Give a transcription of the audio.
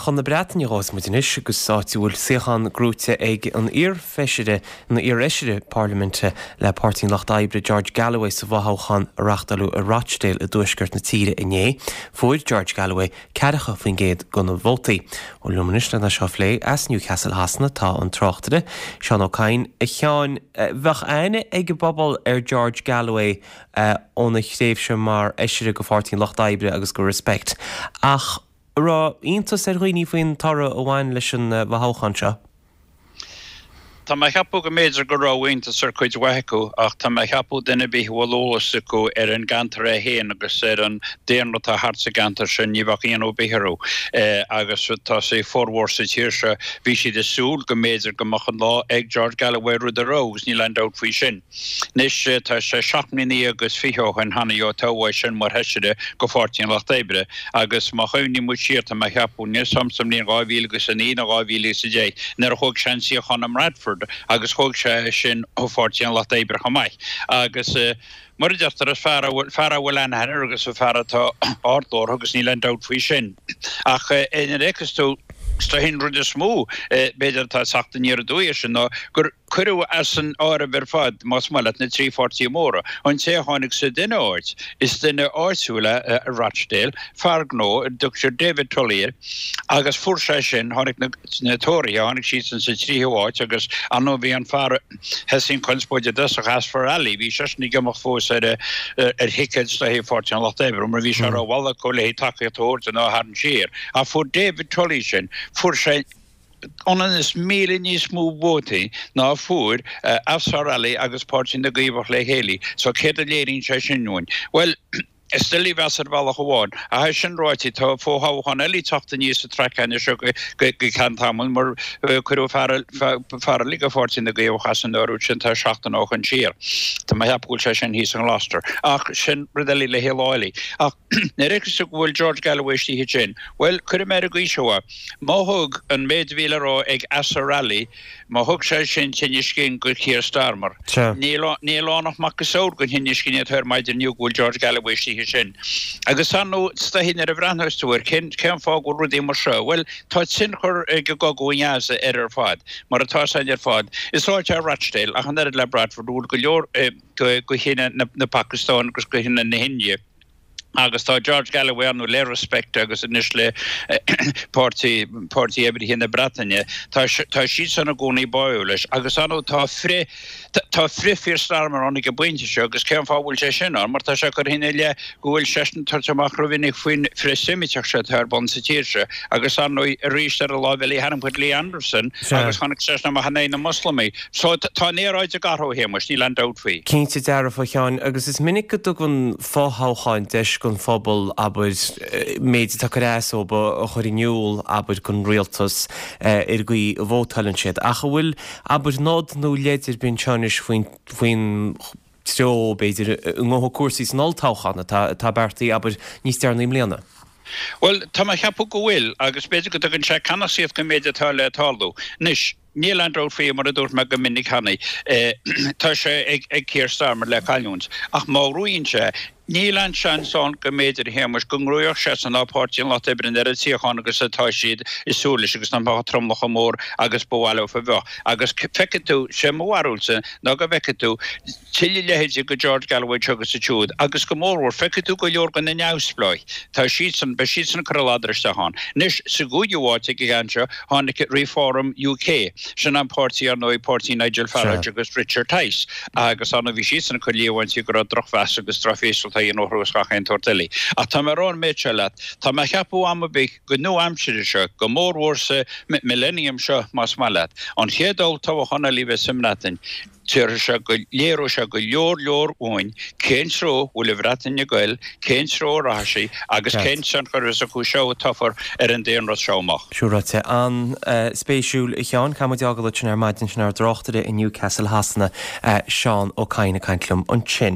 Chun na Breataine a ghabhfas muid anois agus áit a bhfuil suíochán gnóite ag an iar-fheisire, an iar-fheisire parlaiminte le Páirtí an Lucht Oibre, George Galloway sa bhfothoghchán a reáchtáladh i Rochdale i dtuaisceart na tíre inné. Fuair George Galloway 40% de na vótaí. Bhuel liom anois lena seo a phlé as Newcastle Shasana tá an tráchtaire, Seán Ó Cadhain. A Sheáin, bheadh aithne ag an bpobal ar George Galloway óna thréimhse mar fheisire go Pháirtí an Lucht Oibre agus go Respect. Ach an raibh iontas ar dhaoine faoin toradh a bhain leis an bhfothoghchán seo? Tá mé a cheapadh go mb'fhéidir go raibh iontas ar chuid mhaith acu ach tá mé a cheapadh duine ar bith a bhfuil eolas acu ar an gceantar é féin agus ar an daonra atá thart sa gceantar sin ní bheadh ionadh ar bith orthu. Agus tá sé formhór sa tír seo bhí siad ag súil go mb'fhéidir go mbeadh an lá ag George Galloway rud a raibh agus níl aon dabht faoi sin. Anois, tá sé 17 mbliana agus 20 ó shin cheana ó toghadh é sin mar Fheisire go Pháirtí an Lucht Oibre agus má chuimhníonn muid siar, tá mé a cheapadh, níl 'fhios a'm sa mbliain 2009 nó 2010 nuair a thóg sé an suíochán i mBradford agus thóg sé é sin ó Pháirtí an Lucht Oibre chomh maith. Agus mar a deirtear, is fear a bhfuil, fear a bhfuil aithne air agus fear atá ardghlórtha agus níl aon dabht faoi sin. Ach nuair a fheiceas tú, is dóichí an rud is mó b'fhéidir atá ag teacht aniar aduaidh air sin ná gur, Cuireadh as an áireamh ar fad, más maith leat, na trí pháirtí móra. An té a tháinig sa duine áit, is duine áitiúil é i Rochdale, fear gnó, a dtugtar David Tully air, agus fuair sé sin, tháinig na Tóraithe, tháinig siadsan sa tríú háit agus ar ndóigh bhí an fear a thosaigh an chonspóid i dtosach, Azfar Ali, bhí seisean ag imeacht fós ar ar thicéad is dóichí Pháirtí an Lucht Oibre mar bhí sé rómhall acu le tacaíocht a thabhairt dó nó a tharraingt siar. Ach fuair David Tully sin, fuair sé, ionann is 1,000 níos mó vótaí ná a fuair Azfar Ali agus Páirtí na gCaomhach le chéile. So céard a léiríonn sé sin dúinn? Bhuel, is doiligh a mheas ar bhealach amháin. Ach é sin ráite, tá fo-thoghchán eile ag teacht aníos sa traic anois seo go ceann tamaill mar cuireadh fear eile go Pháirtí na gCaomhach as an áireamh sin tá seachtain ó shoin siar. Tá mé a cheapadh go bhfuil sé sin thíos i nGloucester. Ach sin rud eile le haghaidh lá eile. Ach nuair a fheiceas tú go bhfuil George Galloway istigh ansin, bhuel, cuirfidh mé ar an gcaoi seo é. Má thug an méid a bhí le rá ag Azhar Ali, má thug sé sin tinneas cinn go Keir Starmer, níl ann ach macasamhail den thinneas cinn atá air maidin inniu go bhfuil George Galloway istigh ansin. Agus ar ndóigh, is dóichí nuair a bhreathnós tú air, cén fáth go bhfuil rudaí mar seo? Bhuel, tá tionchar ag an gcogadh i nGaza air ar fad, mar atá 'fhios a'inn ar fad. Is áit é Rochdale, ach an oiread le Bradford, a bhfuil go leor de chine na Pacastáine agus de chine na hIndia. Agus tá George Galloway ar ndóigh le Respect agus anois le Páirtí Páirtí Oibrithe na Breataine, tá tá siadsan i gcónaí báúil leis. Agus ar ndóigh tá frith tá frith Keir Starmer ann ag an bpointe seo agus cén fáth a bhfuil sé sin ann? Mar tá sé curtha ina leith go bhfuil seisean ag tabhairt amach rómhinic faoin frith-Seimiteach seo atá ar bun sa tír seo. Agus ar ndóigh arís ar an láimh eile tharraing muid Lee Anderson agus tháinig seisean amach in aghaidh na Moslamaigh. So tá an aeráid ag athrú, a Shéamais, níl aon dabht faoi. Cinnte dearfa, a Sheáin, agus is minic go dtugann fothoghcháin deis don phobal, abair, méid atá ag cur as dóibh a chur in iúl, abair, don rialtas ar an gcaoi a vótáileann siad. Ach an bhfuil, abair, nod nó leid ar bith anseo anois faoin, faoin treo, b'fhéidir, a ngabhfaidh cúrsaí san olltoghchán atá, atá beartaithe, abair, níos deireanaí i mbliana? Bhuel, tá mé a cheapadh go bhfuil, agus b'fhéidir go dtugann sé ceannasaíocht don méid atá le tarlú. Anois, Níl aon dabht faoi, mar a dúirt mé go minic cheana, tá sé ag Keir Starmer le cailliúint. Ach má ghnóthaíonn sé, níl aon seans ann go mb'fhéidir, a Shéamais, go ngnóthódh seisean ná Páirtí an Lucht Oibre an oiread suíochán agus atá siad ag súil leis agus nach mbeadh an tromlach chomh mór agus ba mhaith leo a bheadh. Agus feicfidh tú, sé mo bharúilsa ná go bhfeicfidh tú, tuilleadh leithéidí de George Galloway anseo agus ansiúd, agus go mórmhór, feicfidh tú go leor de na neamhspleáigh, tá siadsan, beidh siadsan ag cur a ladar isteach ann. Anois, sa gcúigiú háit ag an gceann seo, tháinig Reform UK, sin an páirtí, ar ndóigh, páirtí Nigel Farage agus Richard Tice, agus ar ndóigh bhí siadsan ag cur líomhaintí go raibh drochmheas agus drochthástáil á dhéanamh orthu agus gach aon tsórt eile. Ach tá mé ag rá an méid seo leat, tá mé ag ceapadh am ar bith go nua-aimsire seo, go mórmhór sa millennium seo, más maith leat, an chéad olltoghchán eile a bheas sa mBreatain, Déarfaidh sé go léireoidh sé go leor leor uainn cén treo a bhfuil an Bhreatain ag goil, cén treo a rachaidh sí agus cén tionchar a bheas acu seo a toghfar ar an daonra seo amach. Sin ráite. An-spéisiúil, a Sheáin. Caithfidh muid fhágáil ansin ar maidin, sin ár dtráchtaire i Newcastle Shasana, Seán Ó Cadhain ag caint liom ansin.